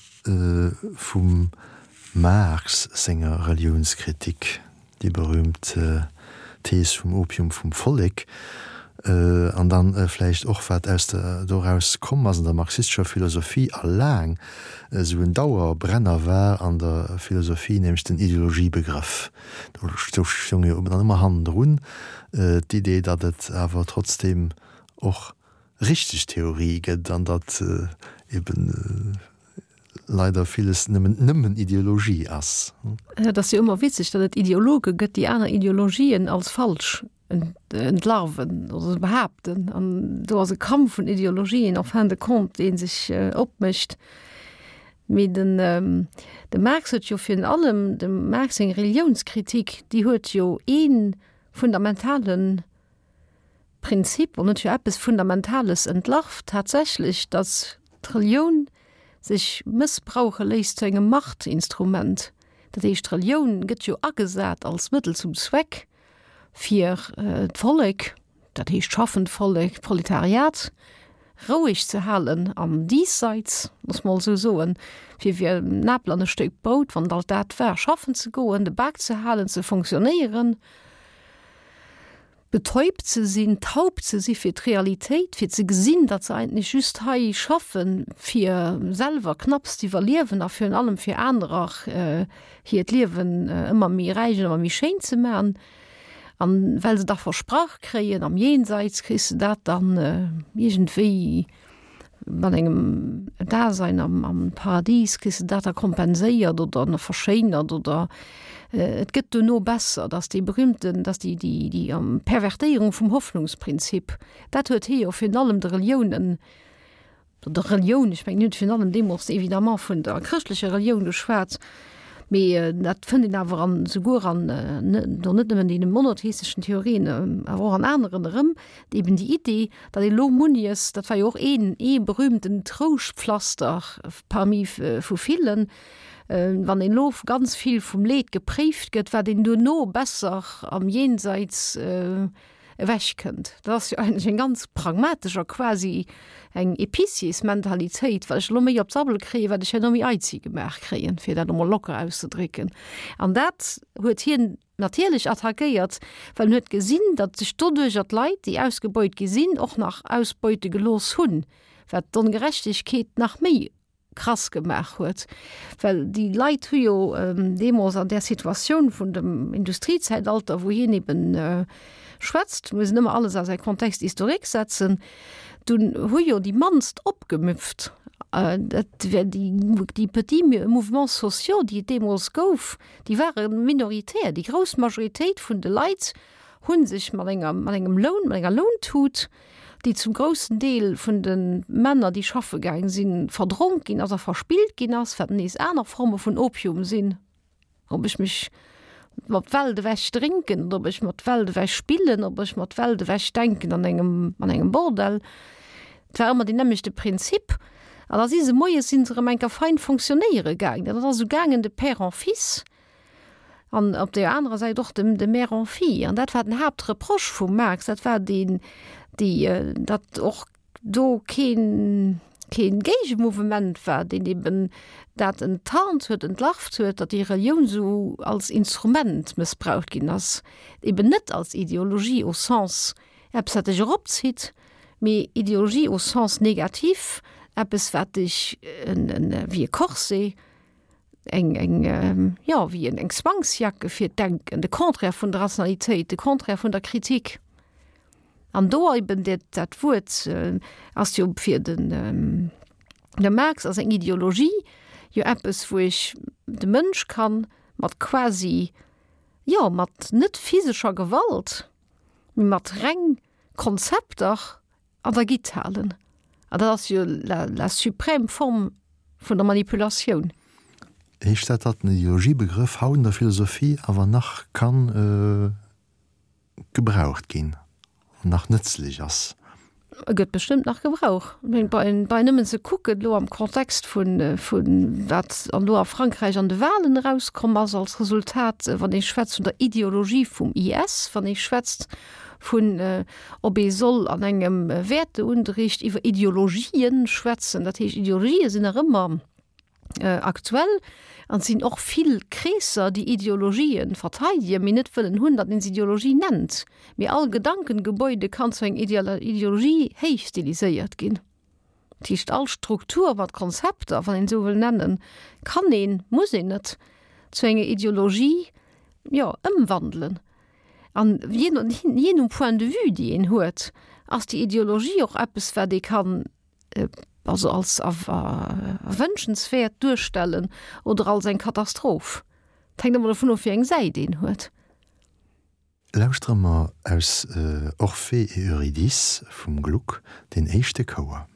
vum Marx senger Reliounskritik, déi berühmt Thees vum Opium vum Vollek, an dann vläicht och wat aus der doraus komm ass an der marxistescher Philosophie a laang esou en Dauerbrenner war an der Philosophie, nämlech den Ideologiebegrëff. Do stoung jo dann ëmmer hannendrun d'Idee, datt et awer trotzdem och richteg Theorie gëtt an datt eben leider villes nëmmen nëmmen Ideologie ass. Et ass jo ëmmer witzeg, datt et Ideologe gëtt, déi aner Ideologien als falsch entlarven oder behaapten. An do ass e Kampf vun Ideologien en fin de compte, dee sech opmécht. Mee den de Marx huet jo virun allem, dem Marx seng Reliounskritik, déi huet jo ee fundamentalen Prinzip an huet jo eppes Fundamentales entlarvt tatsächlech, datt d'Relioun sech mëssbrauche léisst zu engem Machtinstrument. Dat heescht, d'Relioun gëtt jo agesat als Mëttel zum Zweck, fir d'Vollek, dat heescht d'schaffend Vollek, d'Proletariat, roueg ze halen am Diesseits, loosse mer esou soen, fir wéi en Apel an e Stéck Brout, wann et alt dat war, schaffen ze goen, de Bak ze halen, ze fonctionnéieren. Betäubt ze sinn, taub ze si fir d'Realitéit, fir ze gesinn, datt se eigentlech just hei schaffen, fir selwer knapps z'iwwerliewen a virun allem fir anerer hiert Liewen ëmmer méi räich an ëmmer méi schéin ze man. An well se da versprach kréien, am Jenseits kriss de dat dann iergendwéi, mat engem Dasein am, am Paradies kriss de dat da kompenséiert oder nach verschéinert oder et gëtt duerno besser, dass déi berühmten, dass déi, déi, déi Pervertéierung vum Hoffnungsprinzip, dat huet hie jo virun allem de Reliounen, der Relioun, ech mengen, hien huet virun allem deemools évidemment vun der chrëschtlecher Relioun geschwat, Mee dat fënnt een awer an souguer an do net nëmmen deene monotheisteschen Theorien, awer och an aneren erëm, eben déi Idee, datt ee lo munnies, dat war jo och een ee berühmten Trouschtpflaster parmi vu villen, wann een lo ganz vill vum Leed gepréift gëtt, wat een duerno besser am Jenseits ewech kënnt. Dat ass jo eigentlech eng ganz pragmatesch a quasi eng Épiciersmentalitéit, wat ech elo méi op d'Sabbel kréien, wat ech herno méi eizi gemaach kréien, fir dat emol locker auszedrécken. An dat huet hien natierlech attackéiert, well en huet gesinn, datt sech doduercher d'Leit, déi ausgebeut gi sinn, och nach ausbeute gelooss hunn, wat d'Ongerechtegkeet nach méi krass gemaach huet, well déi Leit hu jo deemools an där Situatioun vun dem Industriezäitalter, wou hien eben schwätzt, muss een ëmmer alles a säi Contexte historique setzen, dunn hu jo déi mannst opgemüpft. Dat wär déi, déi petits mouvements sociaux, déi et deemools gouf, déi ware minoritär. Déi grouss Majoritéit vun de Leit hu sech mat enger, mat engem Loun, mat enger Lountut, déi zum groussen Deel vun de Männer, déi schaffe gaang sinn, verdronk ginn ass a verspillt ginn ass, wat nees aner Forme vun Opium sinn. Ob ech mech mat Welt ewech drénken oder ob ech mat Welt ewech spillen, ob ech mat Welt ewech denken an engem, an engem Bordell. Et war ëmmer deen nämmlechte Prinzip. An da si se moies si se erëm eng Kéier fein fonctionnéiere gaangen. Dat ass esou gaangen de Père en fils an op där anerer Säit och de, de Mère en fille. An dat war den Haaptreproche vum Marx, dat war deen, déi, datt och do keen, keen Géigemouvement war, deen eben dat enttarnt huet, entlarvt huet, datt déi Relioun esou als Instrument mëssbraucht ginn ass, eben net als Ideologie au sens eppes wat dech eropzitt, mee Ideologie au sens négatif, eppes wat dech wéi e Corset, eng, eng, jo, wéi eng Zwangsjacke fir d'Denken, de Contraire vun der Rationalitéit, de Contraire vun der Kritik. An do eben dat, dat Wuert ass jo fir den de Marx ass eng Ideologie jo eppes, wou ech de Mënsch kann mat quasi, jo, mat net physescher Gewalt, mee mat reng Konzepter an der Gitt halen. An dat ass jo la, la suprême Form vun der Manipulatioun. Heescht dat, datt den Ideologiebegrëff haut an der Philosophie awer nach kann gebraucht ginn an nach nëtzlech ass. E gëtt bestëmmt nach gebrauch. Ech mengen, bei nëmmen ze kucken elo am Kontext vun, vun wat an elo a Frankräich an de Wahlen erauskomm ass als Resultat, wann ee schwätzt vun der Ideologie vum IS, wann ee schwätzt vun, ob ee soll an engem Wäerteunterricht iwwer Ideologien schwätzen, dat heescht Ideologië sinn nach ëmmer, aktuell an et sinn och vill Kreesser, déi Ideologien verteidegen, mee net wëllen hunn, datt een se Ideologie nennt. Mee all Gedankengebäude kann zu enger Ideologie héichstiliséiert ginn. Dat heescht, all Struktur mat Konzepter, wann een esou wëll nennen, kann een, muss een net, zu enger Ideologie, jo, ëmwandelen. An jee no, jee nom Point de vue, déi een huet, ass déi Ideologie och eppes, wat ee kann also als erwënschenswäert duerstellen oder als eng Katastroph. Et hänkt ëmmer dovun of, wéi eng Säit een huet. Lauschtere mer aus Orphée et Eurydice vum Gluck deen éischte Chouer.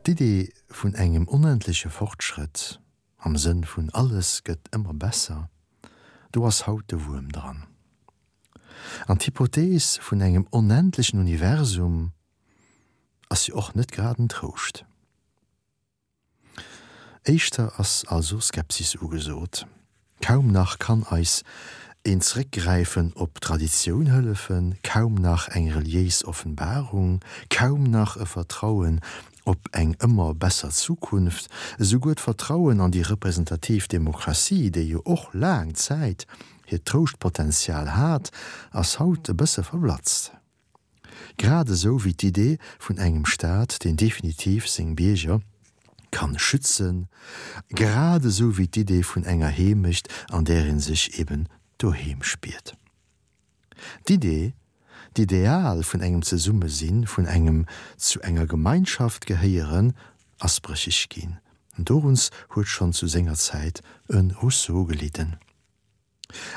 D'Idee vun engem onendleche Fortschrëtt, am Sënn vun alles gëtt ëmmer besser, do ass haut de Wuerm dran. An d'Hypothees vun engem onendlechen Universum ass jo och net grad en Trouscht. Éischter ass also Skepsis ugesot. Kaum nach kann eis een Zeréckgräifen op d'Traditioun hëllefen, kaum nach eng reliéis Offenbarung, kaum nach e Vertrauen op eng ëmmer besser Zukunft, esouguer d'Vertrauen an déi representativ Demokratie, déi jo och laang Zäit hiert Trouschtpotenzial hat, ass haut e bësse verblatzt. Grad esou wéi d'Idee vun engem Staat, deen definitiv seng Bierger kann schützen, grad esou wéi d'Idee vun enger Heemecht, an där ee sech eben doheem spiert. D'Idee, d'Ideal vun engem Zesummesinn, vun engem zu enger Gemeinschaft gehéieren, ass brécheg ginn. Doruns huet schonn zu senger Zäit e Rousseau gelidden.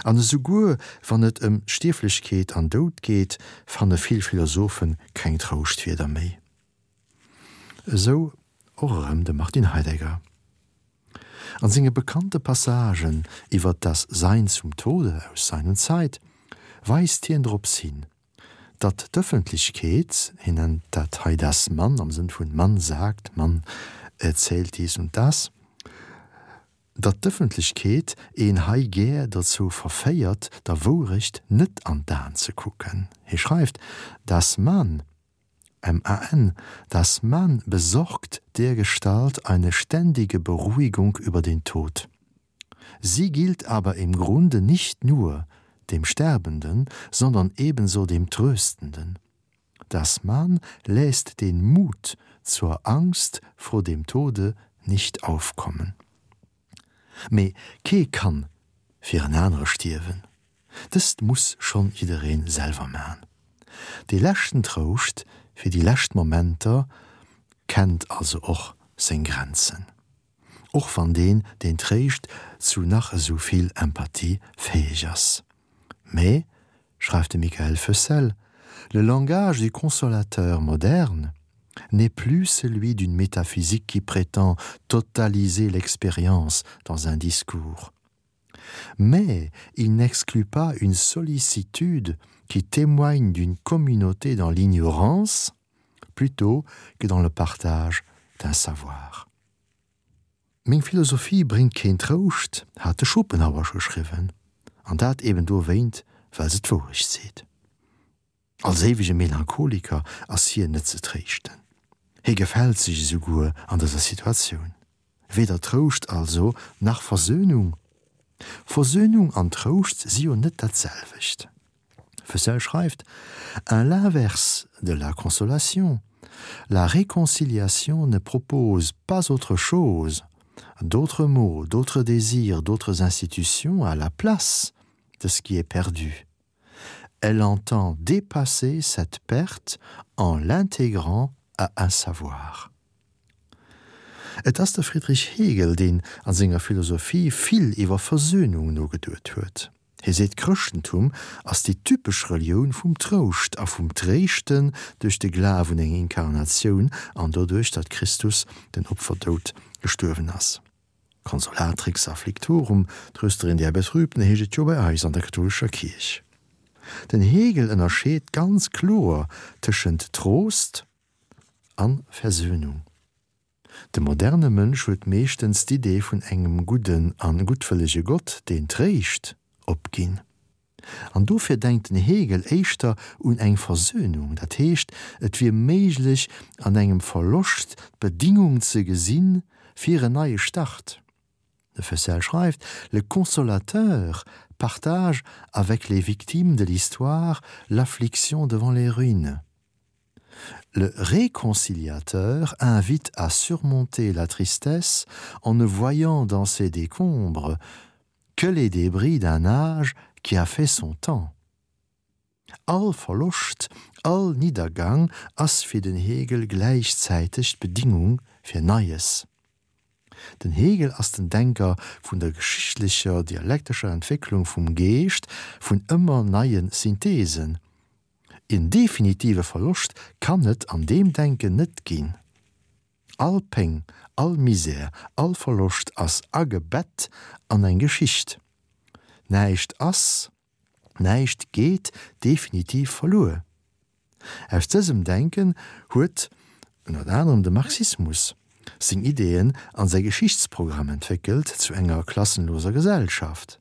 An esouguer wann et ëm Stierflechkeet an Doud geet, fanne vill Philosophe keng Trouschtwierder méi. Esou och erëm de Martin Heidegger. An senge bekannte Passagen iwwer das Sein zum Tode aus Sein und Zeit weist hien drops hin, datt d'Ëffentlechkeet, hien nennt dat hei das Man am Sënn vun man sagt, man erzählt dies und das, datt d'Ëffentlechkeet een hei gär dozou verféiert, der Wourecht net an d'Aen ze kucken. Hie schreift, Das Man, M-A-N, das Man besorgt dergestalt eine ständige Beruhigung über den Tod. Sie gilt aber im Grunde nicht nur dem Sterbenden, sondern ebenso dem Tröstenden. Das Man läßt den Mut zur Angst vor dem Tode nicht aufkommen. Mee kee kann fir en anere stierwen. Dëst muss schonn jiddereen selwer man. Dee leschten Trouscht fir déi lescht Momenter kennt also och seng Grenzen. Och wann deen, deen tréischt, zu nach esou vill Empathie fäeg ass. Mee, schreift de Michael Feussel, le langage du consolateur moderne n'est plus celui d'une métaphysique qui prétend totaliser l'expérience dans un discours. Mais il n'exclut pas une sollicitude qui témoigne d'une communauté dans l'ignorance plutôt que dans le partage d'un savoir. Meng Philosophie bréngt keen Trouscht, hat de Schopenhauer scho geschriwwen, an dat eben dowéint, well se d'Wourecht seet. Als éiwege Melancholiker ass hien net ze tréischten. Hie gefält sech esouguer an dëser Situatioun. Weder Trouscht also, nach Versöhnung. Versöhnung an Trouscht si jo net dat selwecht. Fessel schreift: À l'inverse de la consolation, la réconciliation ne propose pas autre chose, d'autres mots, d'autres désirs, d'autres institutions à la place de ce qui est perdu. Elle entend dépasser cette perte en l'intégrant à un savoir. Et ass de Friedrich Hegel, deen a senger Philosophie vill iwwer Versöhnung nogeduet huet. Hie seet, d'Chrëschtentum ass déi typesch Relioun vum Trouscht a vum Tréischten duerch de Glaf un eng Inkarnatioun an doduerch, datt Christus den Opferdoud gestuerwen ass. Consolatrix afflictorum, Trösterin der Betrübten, heescht et jo bei eis an der kathoulescher Kierch. Den Hegel ënnerscheet ganz kloer tëschent Trost an Versöhnung. De moderne Mënsch huet meeschtens d'Idee vun engem gudden an guttwëllege Gott, deen tréischt, opginn. An dofir denkt den Hegel éischter un eng Versöhnung, dat heescht, et wier méiglech an engem Verloscht d'Bedingung ze gesinn fir en neie Start. De Fessel schreift, Le consolateur partage avec les victimes de l'histoire l'affliction devant les ruines. Le réconciliateur invite à surmonter la tristesse en ne voyant dans ses décombres que les débris d'un âge qui a fait son temps. All Verloscht, all Niddergang ass fir den Hegel gläichzäiteg d'Bedingung fir Neies. Den Hegel ass den Denker vun der geschichtlecher dialektescher Entwécklung vum Geescht, vun ëmmer neie Synthesen. En definitive Verloscht kann et an deem Denken net ginn. All Péng, all Misär, all Verloscht ass agebett an eng Geschicht. Näischt ass, näischt geet definitiv verluer. Aus dësem Denken huet ënnert anerem de Marxismus seng Ideeën an säi Geschichtsprogramm entwéckelt zu enger klassenloser Gesellschaft,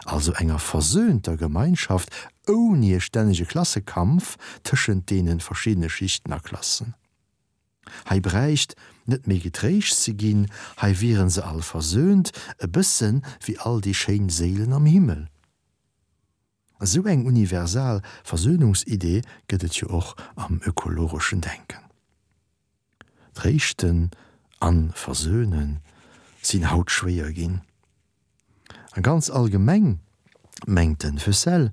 also enger versöhnter Gemeinschaft ouni e stännege Klassekampf tëschent deene verschiddene Schichten a Klassen. Hei bräicht net méi getréischt ze ginn, hei wieren se all versöhnt, e bëssen wéi all déi schéin Séilen am Himmel. Esou eng universal Versöhnungsidee gëtt et jo och am ökologeschen Denken. Tréischten an versöhnen sinn haut schwéier ginn. A ganz allgemeng mengt den Fessel,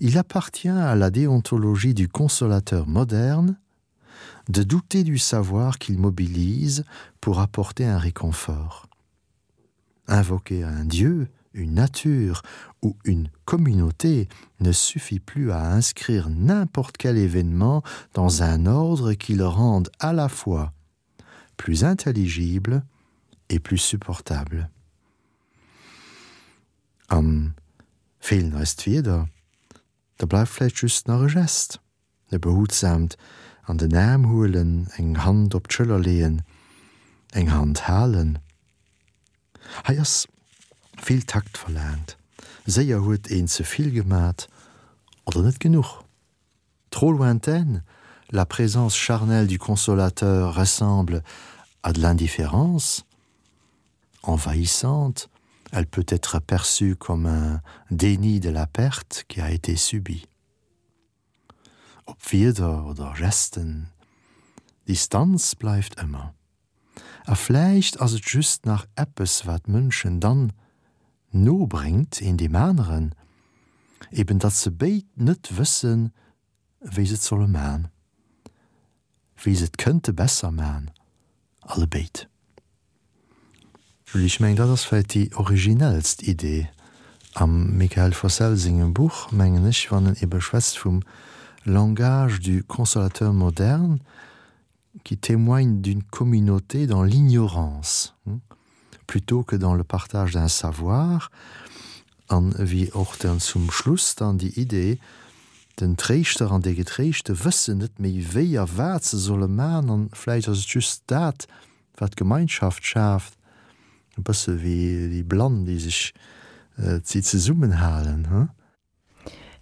Il appartient à la déontologie du consolateur moderne de douter du savoir qu'il mobilise pour apporter un réconfort. Invoquer un dieu, une nature ou une communauté ne suffit plus à inscrire n'importe quel événement dans un ordre qui le rende à la fois plus intelligible et plus supportable. An feelen eis d'Wierder, da bleift vläicht just nach e Gest, e behutsaamt an den Aarm huelen, eng Hand op d'Schëller leeën, eng Hand halen. Hei ass vill Takt verlaangt, séier huet een ze vill gemat oder net genuch. Trop lointaine, la présence charnelle du consolateur ressemble à de l'indifférence, envahissante, elle peut être perçue comme un déni de la perte qui a été subie. Ob Wierder oder Gesten, Distanz bleift ëmmer. A vläicht ass et just nach eppes, wat Mënschen dann no bréngt, een deem aneren, eben datt se béid net wëssen, wéi se et solle man, wéi se et kënnte besser man, allebéid. Julie, ech mengen, dat ass vläicht déi originellst Idee am Mickaël Fossel sengem Buch, mengen ech, wann en ebe schwätzt vum langage du consolateur moderne qui témoigne d'une communauté dans l'ignorance plutôt que dans le partage d'un savoir an wéi och dann zum Schluss dann déi Idee, den Tréischter an dee Getréischte wëssen net méi wéi a wat se solle man an vläicht ass et just dat, wat Gemeinschaft schaaft, e bësse wéi déi Blann, déi sech, déi zesummenhalen, he?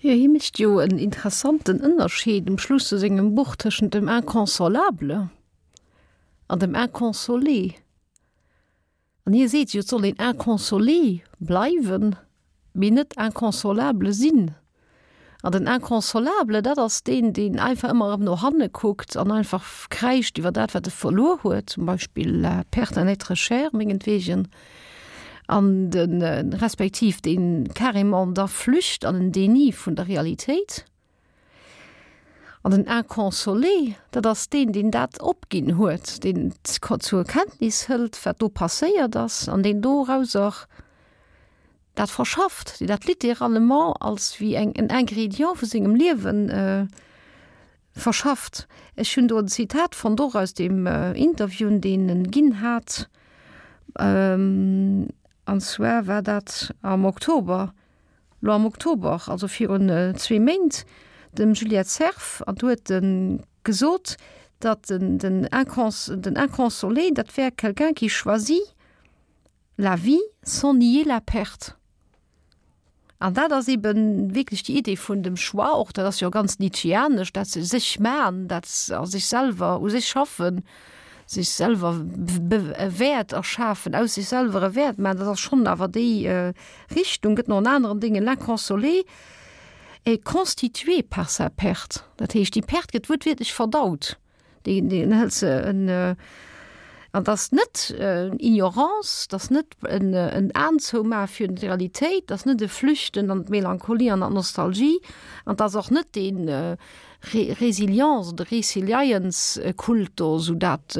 Jo, hie mécht jo en interessanten Ënnerscheed um Schluss vu sengem Buch tëschent dem Inconsolable an dem Inconsolé. An hie seet jo, et soll een inconsolé bleiwen, mee net inconsolable sinn. An den Inconsolable, dat ass deen, deen einfach ëmmer erëm no hanne kuckt an einfach kräischt iwwer dat, wat e verluer huet, zum Beispill la perte d'un être cher, mengetwegen, an de respektiv deen carrément da flücht an en Déni vun der Realitéit. An den Inconsolé, dat ass deen, deen dat opginn huet, deen zur Kenntnis hëlt, wat do passéiert ass, an deen dorauser dat verschafft, deen dat littéralement als wéi eng en Ingrédient vu sengem Liewen verschafft. Ech hunn do en Zitat fonnt, och aus deem Interview, deen en ginn hat, an zwar war dat am Oktober Lo am Oktober, also virun zwee Méint, dem Juliette Cerf, an do huet e gesot, datt den den Inconsolé, dat wär quelqu'un qui choisit la vie sans nier la perte. An dat ass ebe wierklech déi Idee vun dem Choix och, dat ass jo ganz nietzscheanesch, dat se sech man, dat a sech selwer, u sech schaffen, sech selwer e Wäert erschafen, aus sech selwer e Wäert man, dat ass schonn awer déi Richtung. Gëtt no an aneren Dingen l'inconsolé est constitué par sa perte. Dat heescht, déi Perte gëtt wuertwiertlech verdaut. Déi, déi hëlt se en, an dat ass net Ignorance, dat ass net en, en Aen zoumaache fir d'Realitéit, dat ass net e Flüchten an d'Melancholie an an d'Nostalgie, an dat ass och net deen, Résilience oder Resilience-Kult do, esou dat,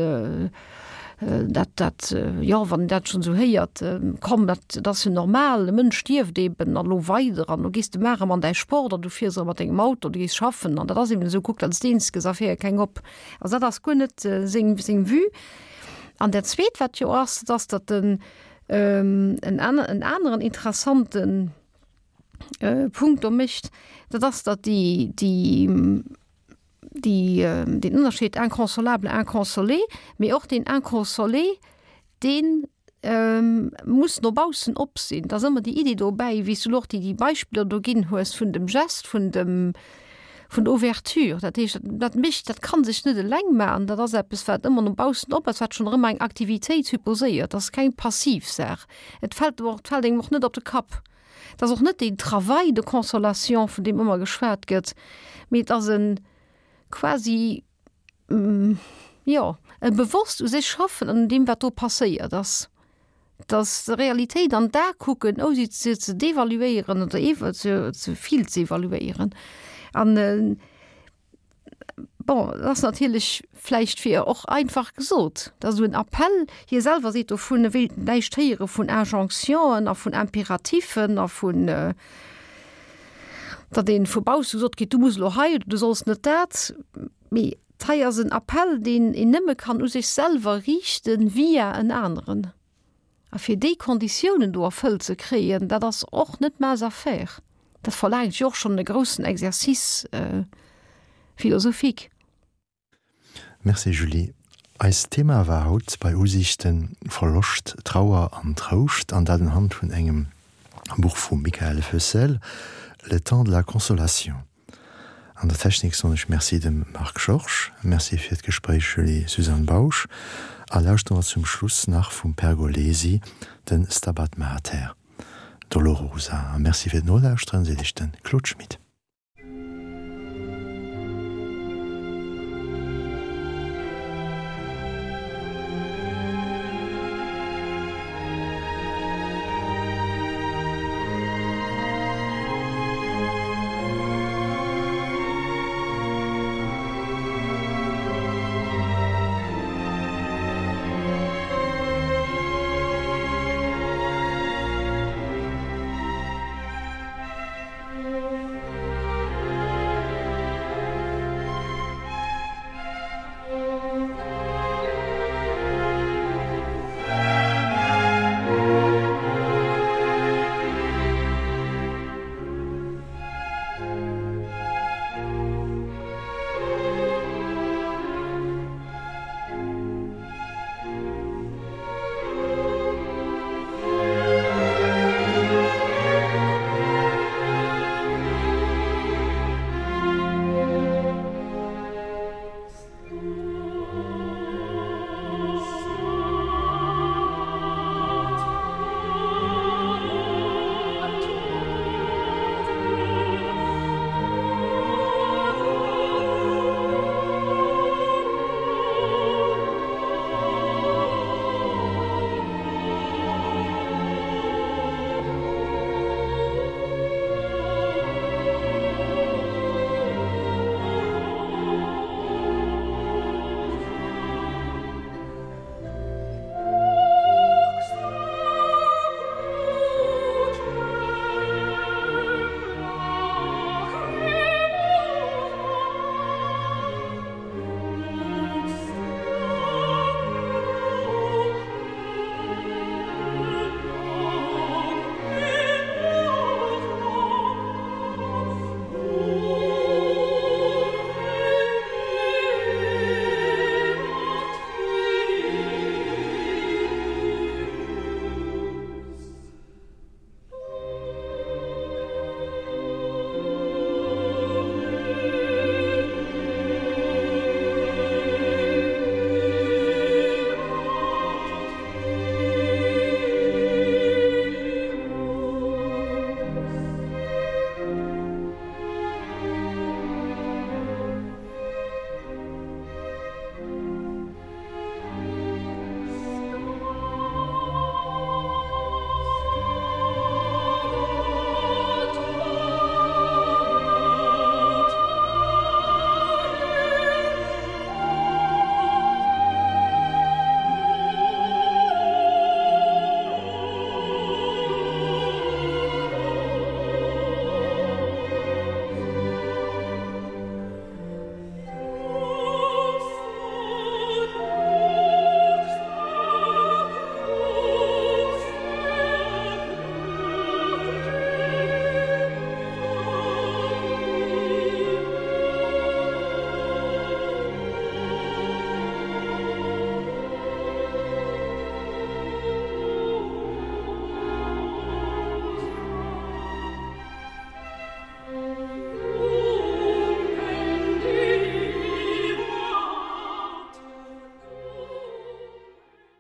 dat, dat, jo, wann een dat schonn esou héiert, komm, dat, dat ass jo normal, e Mënsch stierft eben an elo weider an elo gees de mar erëm an däi Sport an du fiers erëm mat dengem Auto, du gees schaffen an dat ass eben esou, kuck, dat ass d'Eenzege, a féier keng op. Also dat ass guer net seng, seng Vue. An dat Zweet, wat jo ass, dat ass, datt en en aneren interessanten Punkt do mécht, dat ass, datt déi, déi, déi, deen Ënnerscheed inconsolable, inconsolé, mee och deen inconsolé, deen muss no baussen op sinn. Et ass ëmmer déi Iddi dobäi, wéi s du elo och déi, déi Beispiller do ginn hues vun dem Gest, vun dem, vun der Ouverture. Dat heescht, dat mécht, dat ka sech net eleng maachen, dat ass eppes, wat ëmmer no baussen op ass, wat schonn erëm eng Aktivitéit supposéiert. Dat ass keng passiv Saach. Et fält och, et fält engem och net op de Kapp. Et ass och net deen Travail de consolation, vun deem ëmmer geschwat gëtt, mee et ass e quasi, jo, e bewosst u sech schaffen an un deem, wat do passéiert ass. Dass der Realitéit an d'A kucken, ouni se ze devaluéieren oder ewe ze vill ze evaluéieren. An Bon, dat ass natierlech vläicht fir och einfach gesot, dat ass esou en Appell. Hie selwer seet dovun, e wéilt näischt héiere vun Injonctionen a vun Imperatifen a vun, datt ee vu bausse gesot kritt, du muss elo hei oder du solls net dat. Mee hei ass en Appell, deen een nëmme kann u sech selwer riichten via en aneren. A fir déi Konditiounen do erfëllt ze kréien, dat ass och net mince affaire. Dat verlaangt jo och schonn e groussen Exercice philosophique. Merci Julie. Eist Thema war haut bei Usiichten Verloscht, Trauer an Trouscht, an dat unhand vun engem Buch vum Michael Foessel, Le temps de la consolation. An der Technik soen ech Merci dem Marc Georges, Merci fir d'Gespréich Julie Suzanne Bausch a lauschteren mer zum Schluss nach vum Pergolesi den Stabat Mater Dolorosa. A Merci fir d'Nolauschteren seet iech de Claude Schmit.